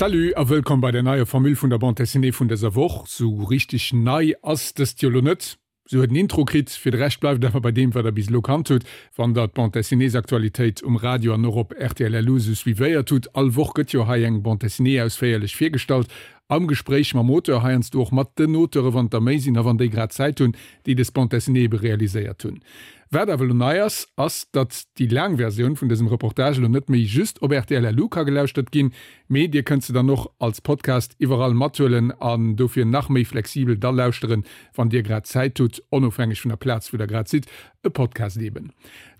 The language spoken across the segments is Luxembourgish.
Salut a wëllkomm bei der neier Formule vun der Bande Dessinée vun dëser Woch. Sou richteg nei ass dëst jo lo net. Se huet en Intro kritt, fir de Rescht bleift et awer bei deem wat der bis elo kannt hutt, wann der d'Bande Dessinéesaktualitéit um Radio an och op rtl LU sou suivéiert hutt. All Woch gëtt jo hei eng Bande Dessinée ausféierlech virgestallt, am Gespréich mam Auteur, heiansdo och mat den Auteure wann et der méi sinn a wann déi grad Zäit hunn, déi des Bande Dessinée ebe realiséiert hunn. Wat awer elo nei ass, ass datt déi laang Versioun vun dësem Reportage elo net méi just op rtl LU ka gelauschtert ginn, Mee dir kënnt se dann och als Podcast iwwerall mathuelen an dofir nach méi flexibel da lauschteren, wann dir grad Zäit hutt, onofhängeg vun der Plaz wou der grad sidd. E Podcast eben.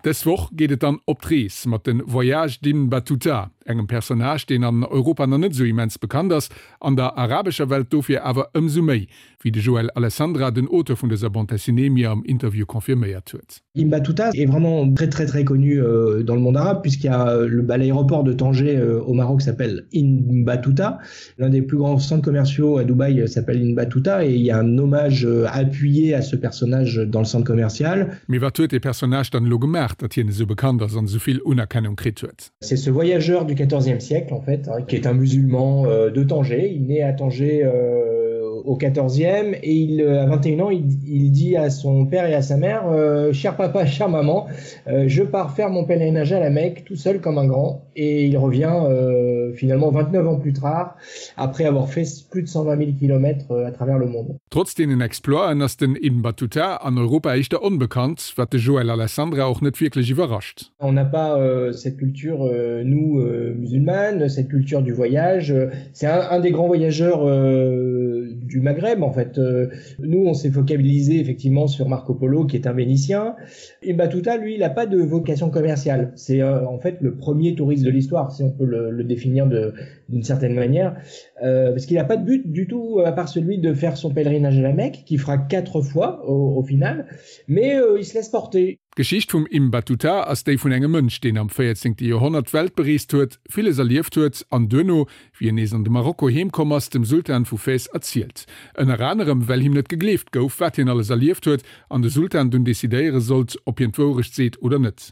Dës Woch geet et dann op d'Rees mat de Voyages d'Ibn Battuta, engem Personnage deen an Europa nach net esou immens bekannt ass, an der arabescher Welt dofir awer ëmsou méi, wéi de Joël Alessandra, den Auteur vun dëser Bande dessinée, mir am Interview confirméiert huet. Ibn Battuta est vraiment très très très connu euh, dans le monde arabe puisqu'il y a euh, le bah, l'aéroport de Tanger euh, au Maroc s'appelle Ibn Battuta. L'un des plus grands centres commerciaux à Dubaï euh, s'appelle Ibn Battuta et il y a un hommage euh, appuyé à ce personnage dans le centre commercial. Mee wat huet dee Personnage dann elo gemaach, datt hien esou bekannt ass an esou vill Unerkennung kritt huet? C'est ce voyageur du XIVe siècle en fait, hein, qui est un musulman euh, de Tanger. Il naît à Tanger euh, au XIVe et il, euh, à 21 ans, il, il dit à son père et à sa mère euh, cher papa, chère maman, euh, je pars faire mon pèlerinage à la Mecque tout seul comme un grand et il revient euh, finalement 29 ans plus tard après avoir fait plus de 120 000 km euh, à travers le monde. Trotz deenen Exploiten ass den Ibn Battuta an Europa éischter onbekannt, wat de Joël Alessandra och net wierklech iwwerrascht. On n'a pas euh, cette culture euh, nous euh, musulmanes, cette culture du voyage. C'est un, un des grands voyageurs euh, du Maghreb en fait. Euh, nous on s'est focalisé effectivement sur Marco Polo qui est un Vénitien. Ibn Battuta lui il n'a pas de vocation commerciale. C'est euh, en fait le premier touriste de l'histoire si on peut le, le définir d'une certaine manière euh, parce qu'il n'a pas de but du tout à part celui de faire son pèlerinage à la Mecque qui fera quatre fois au, au final mais euh, il se laisse porter. D'Geschicht vum Ibn Battuta ass déi vun engem Mënsch, deen am 14. Joerhonnert d'Welt bereest huet, villes erlieft huet an duerno, wéi en nees an de Marokko heem komm ass, dem Sultan vu Fès erzielt. Ënner anerem, well him net gegleeft gouf, wat hien alles erlieft huet an de Sultan dunn decidéiere sollt, ob hien d'Wourecht seet oder net.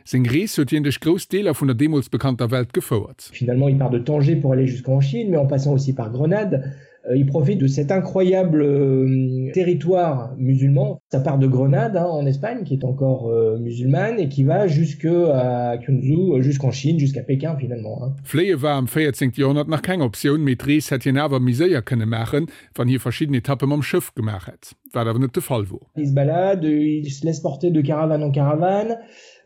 Seng Rees huet hien duerch grouss Deeler vun der deemools bekannter Welt gefouert. Finalement, il part de Tanger pour aller jusqu'en Chine, mais en passant aussi par Grenade. Euh, il profite de cet incroyable euh, territoire musulman. Ça part de Grenade hein, en Espagne, qui est encore euh, musulmane et qui va jusque à Kyunzu, jusqu'en Chine, jusqu'à Pékin finalement. Hein. Fléie war am 14. Joerhonnert nach keng Optioun, mee d'Rees hätt hien awer méi séier kënne maachen, wann hie verschidden Etappe mam Schëff gemaach hätt, wat awer net de Fall wor. Il se balade, il se laisse porter de caravane en caravane.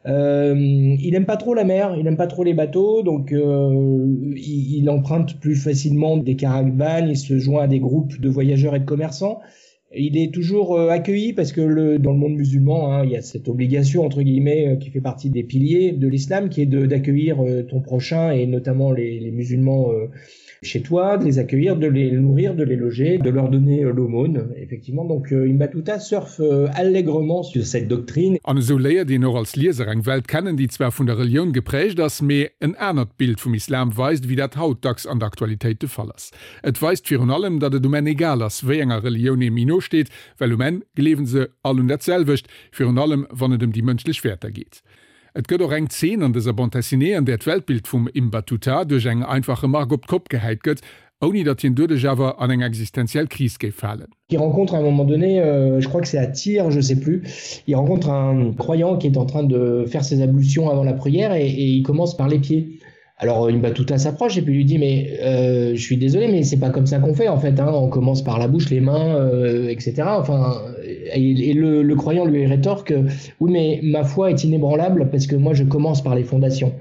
Euh, il aime pas trop la mer, il aime pas trop les bateaux, donc euh, il, il emprunte plus facilement des caravanes, il se joint à des groupes de voyageurs et de commerçants. Il est toujours euh, accueilli parce que le, dans le monde musulman, hein, il y a cette obligation entre guillemets euh, qui fait partie des piliers de l'islam qui est d'accueillir euh, ton prochain et notamment les, les musulmans euh, chez toi, de les accueillir, de les nourrir, de les loger, de leur donner euh, l'aumône effectivement. Donc euh, Ibn Battuta surfe euh, allègrement sur cette doctrine. An esou léiert een och als Lieser eng Welt kennen, déi zwar vun der Relioun geprägt ass, mee en anert Bild vum Islam weist, ewéi dat haut dacks an der Aktualitéit de Fall ass. Et weist virun allem, datt et um Enn egal ass, wéi enger Relioun ee méi no steet, well um Enn gleewen se all un dat selwecht, virun allem wann et ëm déi mënschlech Wäerter geet. Et gëtt och eng Zeen an dëser Bande dessinée, an där d'Weltbild vum Ibn Battuta duerch eng einfach Remark op d'Kopp gehäit gëtt, ouni datt hien doduerch awer an eng existenziell Kris géif falen. Il rencontre à un moment donné, euh, je crois que c'est à Tyr, je sais plus, il rencontre un croyant qui est en train de faire ses ablutions avant la prière et, et il commence par les pieds. Alors Ibn Battuta s'approche et puis lui dit mais euh, je suis désolé mais c'est pas comme ça qu'on fait en fait hein, on commence par la bouche, les mains, euh, etc. Enfin et, et le, le croyant lui rétorque oui mais ma foi est inébranlable parce que moi je commence par les fondations.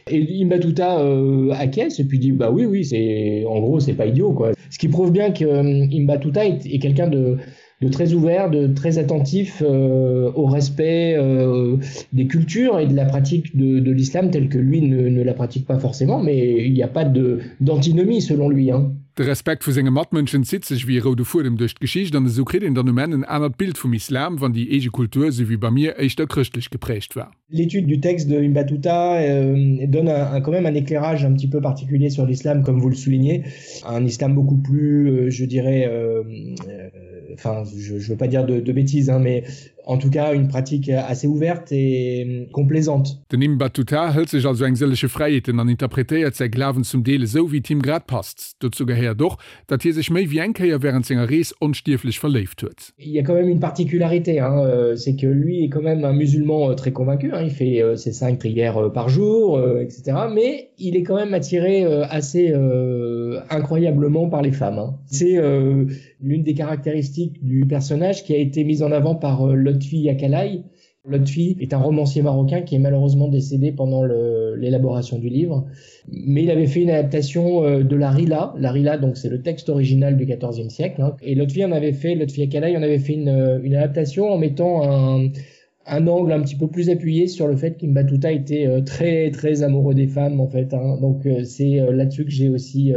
Et Ibn Battuta euh, acquiesce et puis dit bah oui oui c'est en gros c'est pas idiot quoi. Ce qui prouve bien que euh, Ibn Battuta est, est quelqu'un de de très ouvert, de très attentif euh, au respect euh, des cultures et de la pratique de, de l'islam telle que lui ne, ne la pratique pas forcément, mais il n'y a pas d'antinomie selon lui. Hein. De Respekt vu senge Matmënschen zitt sech wéi e roude Fuedem duerch d'Geschicht an esou kritt een dann um Enn en anert Bild vum Islam, wann déi eege Kultur, esou wéi bei mir, éischter chrëschtlech geprägt war. L'étude du texte de Ibn Battuta euh, donne un, un, quand même un éclairage un petit peu particulier sur l'islam, comme vous le soulignez, un islam beaucoup plus, euh, je dirais, euh, euh, enfin, je, je veux pas dire de, de bêtises, hein, mais. En tout cas une pratique assez ouverte et complaisante. Den Ibn Battuta hëlt sech also eng sëllege Fräiheeten an interpretéiert säi Glawen zum Deel esou, wéi et him grad passt. Dozou gehéiert och, datt hie sech méi wéi eng Kéier wärend senger Rees onstierflech verléift huet. Il y a quand même une particularité, hein, euh, c'est que lui est quand même un musulman euh, très convaincu, hein, il fait euh, ses cinq prières par jour, etc. Mais il est quand même attiré assez incroyablement par les femmes. Hein. C'est l'une des caractéristiques du personnage qui a été mise en avant par Lotfi Yakalai, Lotfi est un romancier marocain qui est malheureusement décédé pendant l'élaboration du livre. Mais il avait fait une adaptation euh, de la Rila. La Rila, donc c'est le texte original du XIVe siècle. Hein. Et Lotfi en avait fait, Lotfi Akalai en avait fait une, euh, une adaptation en mettant un, un angle un petit peu plus appuyé sur le fait qu'Imbatuta était euh, très très amoureux des femmes en fait. Hein. Donc c'est là-dessus que j'ai aussi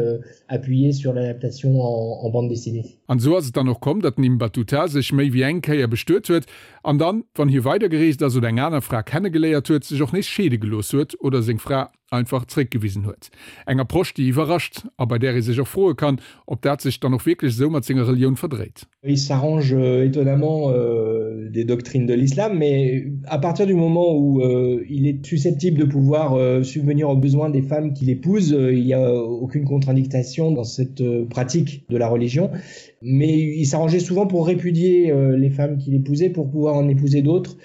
appuyé sur l'adaptation en, en bande dessinée. An esou ass et dann och komm, datt den Ibn Battuta sech méi wéi eng Kéier bestuet huet an dann, wann hie weidergereest ass oder eng aner Fra kennegeléiert huet, sech och nees scheede gelooss huet oder seng Fra einfach zréckgewisen huet. Eng Approche, déi iwwerrascht a bei där ee sech och froe kann, ob dat sech dann och wierklech esou mat senger Relioun verdréit. Il s'arrange euh, étonnamment euh, des doctrines de l'islam, mais à partir du moment où euh, il est susceptible de pouvoir euh, subvenir aux besoins des femmes qu'il épouse, euh, il n'y a aucune contre-indication dans cette euh, pratique de la religion. Mais il s'arrangeait souvent pour répudier euh, les femmes qu'il épousait pour pouvoir en épouser d'autres.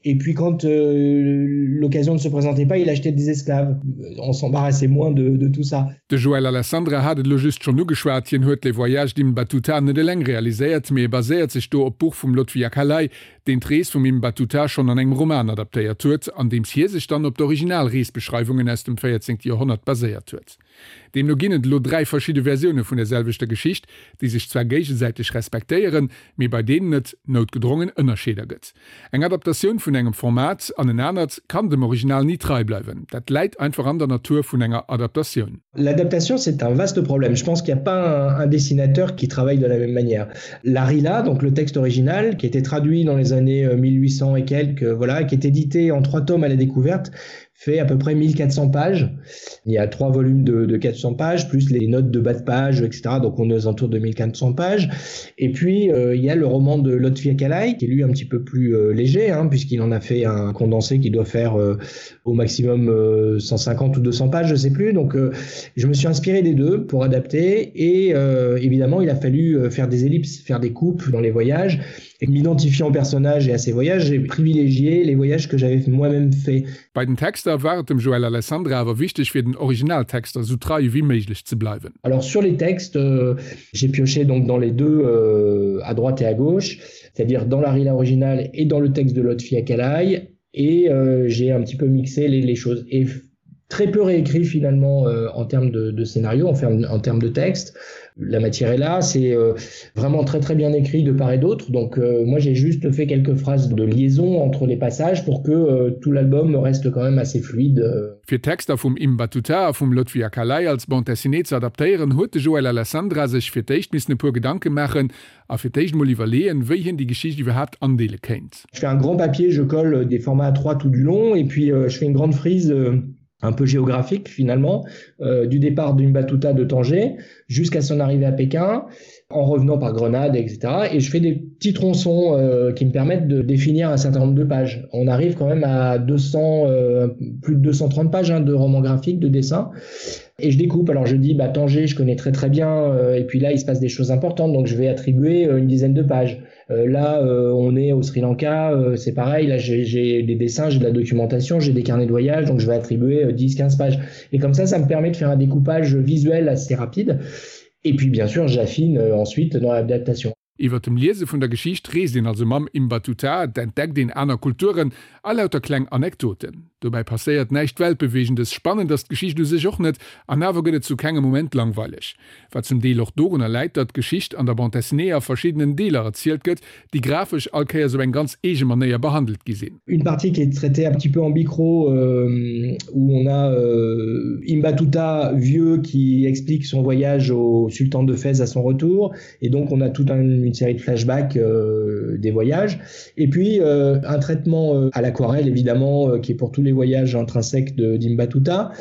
Et puis quand euh, l'occasion ne se présentait pas, il achetait des esclaves. On s'embarrassait moins de, de tout ça. De Joël Alessandra hat et elo just schonn ugeschwat, hien huet Les Voyages d'Ibn Battuta net eleng realiséiert, mee e baséiert sech do op d'Buch vum Lotfi Akalay, deen d'Rees vum Ibn Battuta schonn an engem Roman adaptéiert huet, andeems hie sech dann op d'original Reesbeschreiwungen aus dem 14. Joerhonnert baséiert huet. Deemno ginn et elo 3 verschidde Versioune vun der selwechter Geschicht, déi sech zwar géigesäiteg respektéieren, mee bei deenen et noutgedrongen Ënnerscheeder gëtt. Eng Adaptatioun vun engem Format an en anert kann dem Original ni trei bleiwen, dat läit einfach an der Natur vun enger Adaptatioun. L'adaptation, c'est un vaste problème. Je pense qu'il n'y a pas un, un dessinateur qui travaille de la même manière. La Rila, donc le texte original, qui était traduit dans les années 1800 euh, et quelques, voilà, qui est édité en trois tomes à la découverte, fait à peu près 1400 pages. Il y a trois volumes de, de 400 pages, plus les notes de bas de page, etc. Donc on est aux alentours de 1400 pages. Et puis euh, il y a le roman de Lotfi Akalai, qui est lui un petit peu plus euh, léger, puisqu'il en a fait un condensé qui doit faire euh, au maximum euh, 150 ou 200 pages, je sais plus. Donc euh, je me suis inspiré des deux pour adapter. Et euh, évidemment, il a fallu euh, faire des ellipses, faire des coupes dans les voyages. Et m'identifiant au personnage et à ses voyages, j'ai privilégié les voyages que j'avais moi-même fait. Bei den Texter war et dem Joël Alessandra awer wichteg fir den Originaltexter sou trei ewéi méiglech ze bleiwen. Alors sur les textes, euh, j'ai pioché donc dans les deux euh, à droite et à gauche, c'est-à-dire dans la rila originale et dans le texte de Lotfi Akalai et euh, j'ai un petit peu mixé les, les choses et très peu réécrit finalement euh, en termes de, de scénario, en, en termes de texte. La matière est là, c'est euh, vraiment très très bien écrit de part et d'autre. Donc euh, moi j'ai juste fait quelques phrases de liaison entre les passages pour que euh, tout l'album reste quand même assez fluide. Euh. Fir d'Texter vum Ibn Battuta a vum Lotfi Akalay als Bande dessinée ze adaptéieren, huet de Joël Alessandra sech fir d'éischt missen e puer Gedanke maachen a fir d'éischt mol iwwerleeën, wéi hien déi Geschicht iwwerhaapt andeele kéint. Je fais un grand papier, je colle des formats A3 tout du long et puis euh, je fais une grande frise euh, un peu géographique finalement euh, du départ d'une Battuta de Tanger jusqu'à son arrivée à Pékin en revenant par Grenade etc et je fais des petits tronçons euh, qui me permettent de définir un certain nombre de pages on arrive quand même à 200 euh, plus de 230 pages hein, de romans graphiques de dessins et je découpe alors je dis bah Tanger je connais très très bien euh, et puis là il se passe des choses importantes donc je vais attribuer euh, une dizaine de pages euh, là euh, on est au Sri Lanka euh, c'est pareil là j'ai des dessins j'ai de la documentation j'ai des carnets de voyage donc je vais attribuer euh, 10 15 pages et comme ça ça me permet de faire un découpage visuel assez rapide et puis bien sûr j'affine euh, ensuite dans l'adaptation. Iwwer dem Liese vun der Geschicht reest een also mam Ibn Battuta, et entdeckt een aner Kulturen a lauter kleng Anekdoten. Dobäi passéiert näischt Weltbeweegendes, spannend ass d'Geschicht u sech och net an awer gëtt et zu kengem Moment langweileg. Wat zum Deel och dorunner läit, datt d'Geschicht an der Bande dessinée a verschiddenen Deeler erzielt gëtt, déi grafesch all Kéiers op eng ganz eege Manéier behandelt gi sinn. Une partie qui est traitée un petit peu en bichro euh, où on a euh, Ibn Battuta vieux qui explique son voyage au sultan de Fès à son retour et donc on a toute un, une série de flashbacks euh, des voyages et puis euh, un traitement euh, à l'aquarelle évidemment euh, qui est pour tous les voyages intrinsèques d'Ibn Battuta.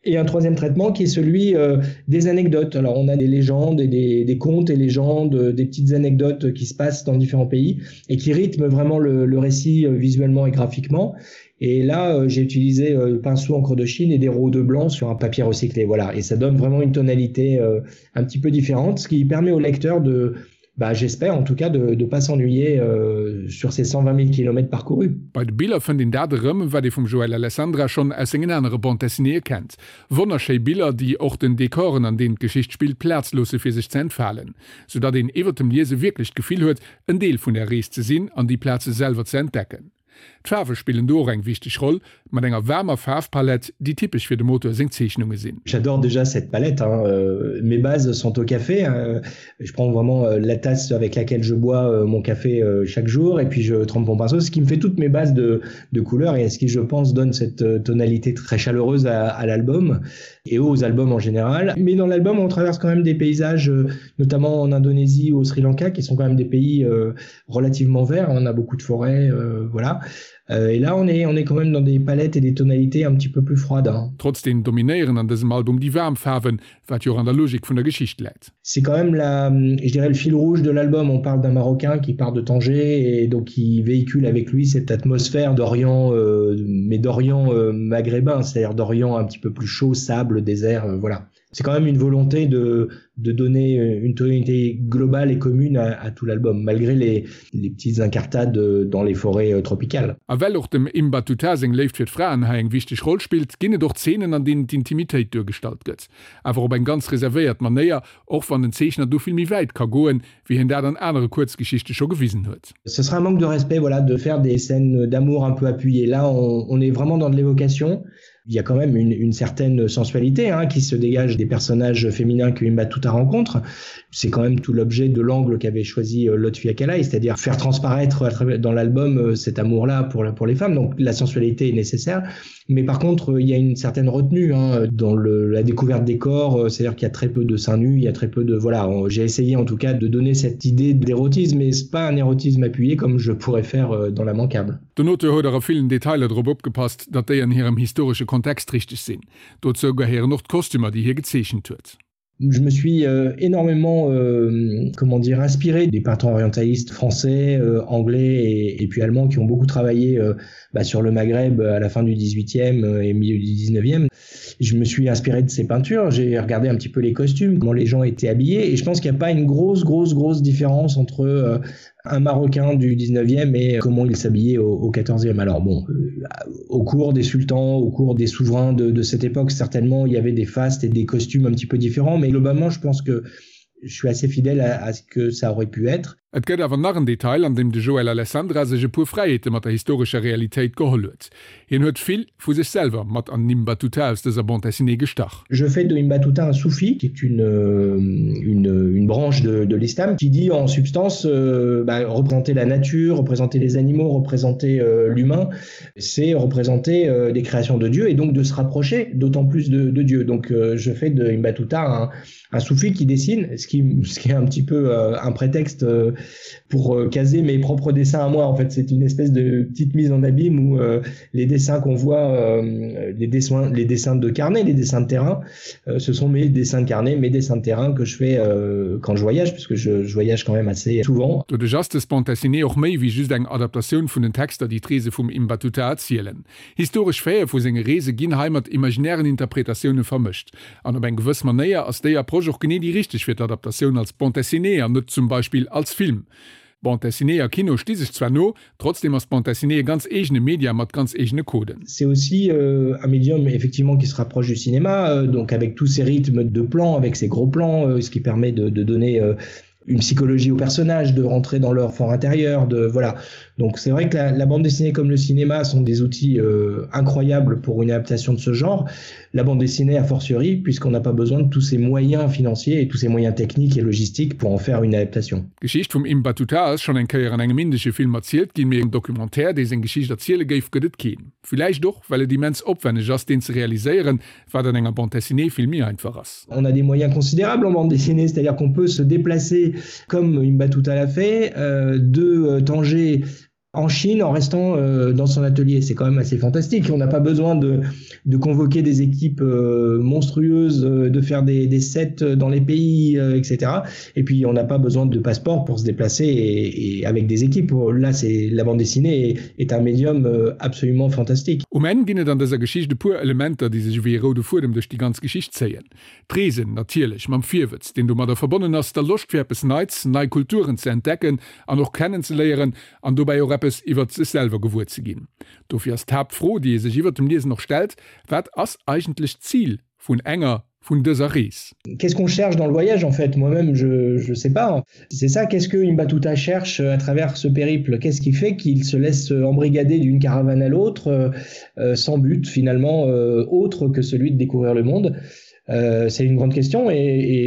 Et un troisième traitement qui est celui euh, des anecdotes. Alors on a des légendes et des, des contes et légendes, euh, des petites anecdotes qui se passent dans différents pays et qui rythment vraiment le, le récit euh, visuellement et graphiquement. Et là, euh, j'ai utilisé euh, pinceau encre de Chine et des roues de blanc sur un papier recyclé. Voilà. Et ça donne vraiment une tonalité euh, un petit peu différente, ce qui permet au lecteur de, bah, j'espère en tout cas de ne pas s'ennuyer euh, sur ces 120 000 km parcourus. Bei de Biller fënnt een dat erëm, wat ee vum Joël Alessandra schonn aus sengen anere Bande dessinéeë kennt. Wonnerschéi Biller, déi och den Dekoren, an deenen d'Geschicht spillt, Plaz loosse fir sech ze entfalen, soudatt een iwwert dem Liese wierklech d'Gefill huet, en Deel vun där Rees ze sinn an déi Plaze selwer ze entdecken. D'Faarwe spillen do och eng wichteg Roll, mat enger waarmer Faarfpalett, déi typesch fir dem Auteur seng Zeechnunge sinn. J'adore déjà cette palette hein, euh, mes bases sont au café hein. Je prends vraiment euh, la tasse avec laquelle je bois euh, mon café euh, chaque jour et puis je trempe mon pinceau, ce qui me fait toutes mes bases de, de couleurs et ce qui je pense donne cette euh, tonalité très chaleureuse à, à l'album et aux albums en général. Mais dans l'album on traverse quand même des paysages, euh, notamment en Indonésie ou au Sri Lanka, qui sont quand même des pays euh, relativement verts, on a beaucoup de forêts euh, voilà. Euh, et là on est, on est quand même dans des palettes et des tonalités un petit peu plus froides. Hein. Trotzdem dominéieren an dësem Album déi waarm Faarwen, wat jo och an der Logik vun der Geschicht läit. C'est quand même la, je dirais le fil rouge de l'album. On parle d'un Marocain qui part de Tanger et donc qui véhicule avec lui cette atmosphère d'Orient, euh, mais d'Orient euh, maghrébin, c'est-à-dire d'Orient un petit peu plus chaud, sable, désert, euh, voilà. C'est quand même une volonté de, de donner une tonalité globale et commune à, à tout l'album, malgré les, les petites incartades dans les forêts euh, tropicales. A well och dem Ibn Battuta seng Léift fir d'Fraen hei eng wichteg Roll spillt, ginn et och Zeenen, an deenen d'Intimitéit duergestallt gëtt. Awer op eng ganz reservéiert Manéier, och wann den Zeechner do vill méi wäit ka goen, wéi hien dat an anere Kuerzgeschichte scho gewisen huet. Ce serait un manque de respect voilà, de faire des scènes d'amour un peu appuyées. Là, on, on est vraiment dans de l'évocation. Il y a quand même une, une certaine sensualité hein, qui se dégage des personnages féminins que Ibn Battuta rencontre. C'est quand même tout l'objet de l'angle qu'avait choisi euh, Lotfi Akalai, c'est-à-dire faire transparaître dans l'album euh, cet amour-là pour, pour les femmes. Donc la sensualité est nécessaire. Mais par contre, il y a une certaine retenue hein, dans le, la découverte des corps, euh, c'est-à-dire qu'il y a très peu de seins nus, il y a très peu de voilà, j'ai essayé en tout cas de donner cette idée d'érotisme, mais c'est pas un érotisme appuyé comme je pourrais faire euh, dans l'immanquable. Den Auteur huet och a villen Detailer drop opgepasst, datt déi an hirem historesche Kontext richteg sinn. Dozou gehéieren och d'Kostümer, déi hie gezeechent huet. Je me suis euh, énormément euh, comment dire inspiré des peintres orientalistes français, euh, anglais et, et puis allemands qui ont beaucoup travaillé euh, bah, sur le Maghreb à la fin du 18e euh, et milieu du 19e. Je me suis inspiré de ces peintures, j'ai regardé un petit peu les costumes, comment les gens étaient habillés et je pense qu'il n'y a pas une grosse grosse grosse différence entre euh, un Marocain du 19e et comment il s'habillait au, au 14e. Alors bon, euh, au cours des sultans, au cours des souverains de, de cette époque, certainement il y avait des fastes et des costumes un petit peu différents, mais globalement je pense que je suis assez fidèle à, à ce que ça aurait pu être. Et gëtt awer nach en Detail, an deem de Joël Alessandra sech e puer Fräiheete mat der historescher Realitéit geholl huet. Hien huet vill vu sech selwer mat an den Ibn Battuta aus dëser Bande dessinée gestach. Je fais de Ibn Battuta un soufi, qui est une, euh, une, une branche de, de l'islam, qui dit en substance euh, bah, représenter la nature, représenter les animaux, représenter euh, l'humain, c'est représenter euh, des créations de Dieu et donc de se rapprocher d'autant plus de, de Dieu. Donc euh, je fais de Ibn Battuta un, un soufi qui dessine, ce qui, ce qui est un petit peu euh, un prétexte euh, pour euh, caser mes propres dessins à moi. En fait, c'est une espèce de petite mise en abîme où euh, les dessins qu'on voit, euh, les, dessins, les dessins de carnet, les dessins de terrain, euh, ce sont mes dessins de carnet, mes dessins de terrain que je fais euh, quand je voyage, puisque je, je voyage quand même assez souvent. Doduerch ass dës Bande dessinée och méi wéi just eng Adaptatioun vun den Texter, déi d'Reese vum Ibn Battuta erzielen. Historesch Faite vu senge Reese ginn hei mat imaginären Interpretatioune vermëscht. An op eng gewëss Manéier ass déi Approche och genee déi richteg fir d'Adaptatioun als Bande dessinée an net zum Beispill als Film. Bande dessinée a Kino sti sech zwar no, trotzdem ass d'Bande dessinée e ganz eegene Media mat ganz eegene Coden. C'est aussi euh, un médium effectivement qui se rapproche du cinéma, euh, donc avec tous ces rythmes de plans, avec ces gros plans, euh, ce qui permet de, de donner euh, une psychologie au personnage, de rentrer dans leur fort intérieur, de voilà. Donc c'est vrai que la, la bande dessinée comme le cinéma sont des outils euh, incroyables pour une adaptation de ce genre. La bande dessinée a fortiori puisqu'on n'a pas besoin de tous ces moyens financiers et tous ces moyens techniques et logistiques pour en faire une adaptation. D'Geschicht vum Ibn Battuta ass schonn eng Kéier an engem indesche Film erzielt ginn, mee en Documentaire, dee seng Geschicht erziele géif, gëtt et keen. Villäicht och, well et immens opwenneg ass, deen ze realiséieren, wat an enger Bande dessinée vill méi einfach ass. On a des moyens considérables en bande dessinée, c'est-à-dire qu'on peut se déplacer comme Ibn Battuta l'a fait, euh, de euh, Tanger. En Chine en restant euh, dans son atelier, c'est quand même assez fantastique. On n'a pas besoin de, de convoquer des équipes euh, monstrueuses, euh, de faire des, des sets dans les pays, euh, etc. Et puis on n'a pas besoin de passeport pour se déplacer et, et avec des équipes. Là c'est la bande dessinée est, est un médium euh, absolument fantastique. Um Enn ginn et an dëser Geschicht e puer Elementer, déi sech ewéi e roude Fuedem duerch déi ganz Geschicht zéien. D'Reesen natierlech, mam Virwëtz, deen domadder verbonnen ass, der Loscht fir eppes Neits, nei Kulturen ze entdecken an och kennenzeléieren an dobäi och eppes iwwert sech selwer gewuer ze ginn. Dofir ass d'Haaptfro, déi ee sech iwwert dem Liesen och stellt, Wat ass eigentlech d'Zil vun enger, vun dëser Rees? Qu'est-ce qu'on cherche dans le voyage en fait? Moi-même je je sais pas. C'est ça, qu'est-ce que Ibn Battuta cherche à travers ce périple? Qu'est-ce qui fait qu'il se laisse embrigader d'une caravane à l'autre euh, sans but finalement euh, autre que celui de découvrir le monde? Euh, c'est une grande question et,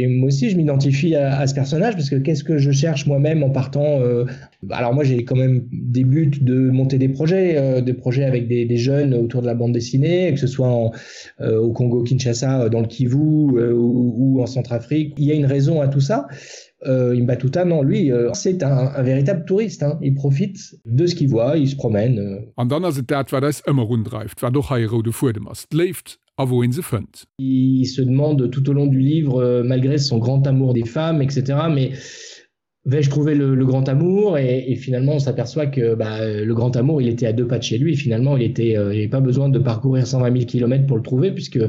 et moi aussi je m'identifie à, à ce personnage parce que qu'est-ce que je cherche moi-même en partant euh, alors moi j'ai quand même des buts de monter des projets euh, des projets avec des, des jeunes autour de la bande dessinée que ce soit en, euh, au Congo Kinshasa euh, dans le Kivu euh, ou, ou en Centrafrique il y a une raison à tout ça euh, Imbatuta non lui euh, c'est un, un véritable touriste hein. il profite de ce qu'il voit il se promène euh. An dann ass et dat wat eis ëmmer undreift, wat och hei e roude Fuedem ass, d'Léift a wou een se fënnt. Il se demande tout au long du livre euh, malgré son grand amour des femmes etc mais vais-je trouver le, le grand amour et, et finalement on s'aperçoit que bah, le grand amour il était à deux pas de chez lui finalement il était euh, il n'avait pas besoin de parcourir 120 000 km pour le trouver puisque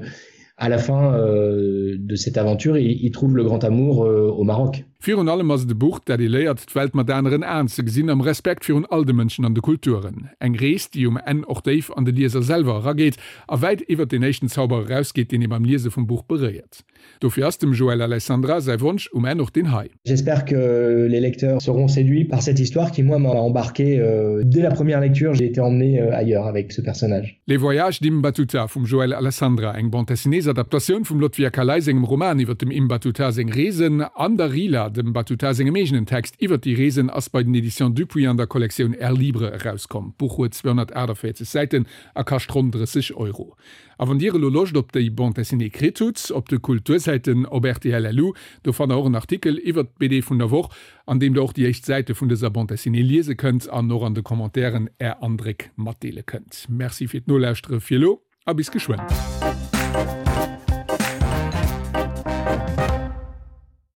à la fin euh, de cette aventure il, il trouve le grand amour euh, au Maroc. Virun allem ass et e Buch, dat ee léiert, d'Welt mat aneren Aen ze gesinn, am Respekt virun all de Mënschen an de Kulturen. Eng Rees, déi um Enn och déif an de Lieser selwer erageet a wäit iwwert deen éischten Zauber erausgeet, deen ee beim Liese vum Buch beréiert. Dofir ass dem Joël Alessandra säi Wonsch um Enn och deen hei. J'espère que les lecteurs seront séduits par cette histoire qui moi m'a embarqué dès la première lecture, j'ai été emmené ailleurs avec ce personnage. Les Voyages d'Ibn Battuta vum Joël Alessandra, eng Bande dessinées-Adaptatioun vum Lotfi Akalay sengem Roman iwwer dem Ibn Battuta seng Reesen, an der Rihla, dem Battuta sengem eegenen Text iwwer déi Reesen, ass bei den Editions Dupuis an der Kollektioun Air Libre erauskomm. D'Buch huet 248 Säiten a kascht ronn 30 Euro. A wann Dir elo Loscht op déi Bande dessinée kritt hutt, op de Kultursäiten op rtl LU, do fannt der och en Artikel iwwert d'BD vun der Woch, an deem der och déi éischt Säite vun dëser Bande dessinée liese kënnt an och an de Commentairen Är Andréck matdeele kënnt. Merci fir d'Nolauschtere fir elo a bis geschwënn.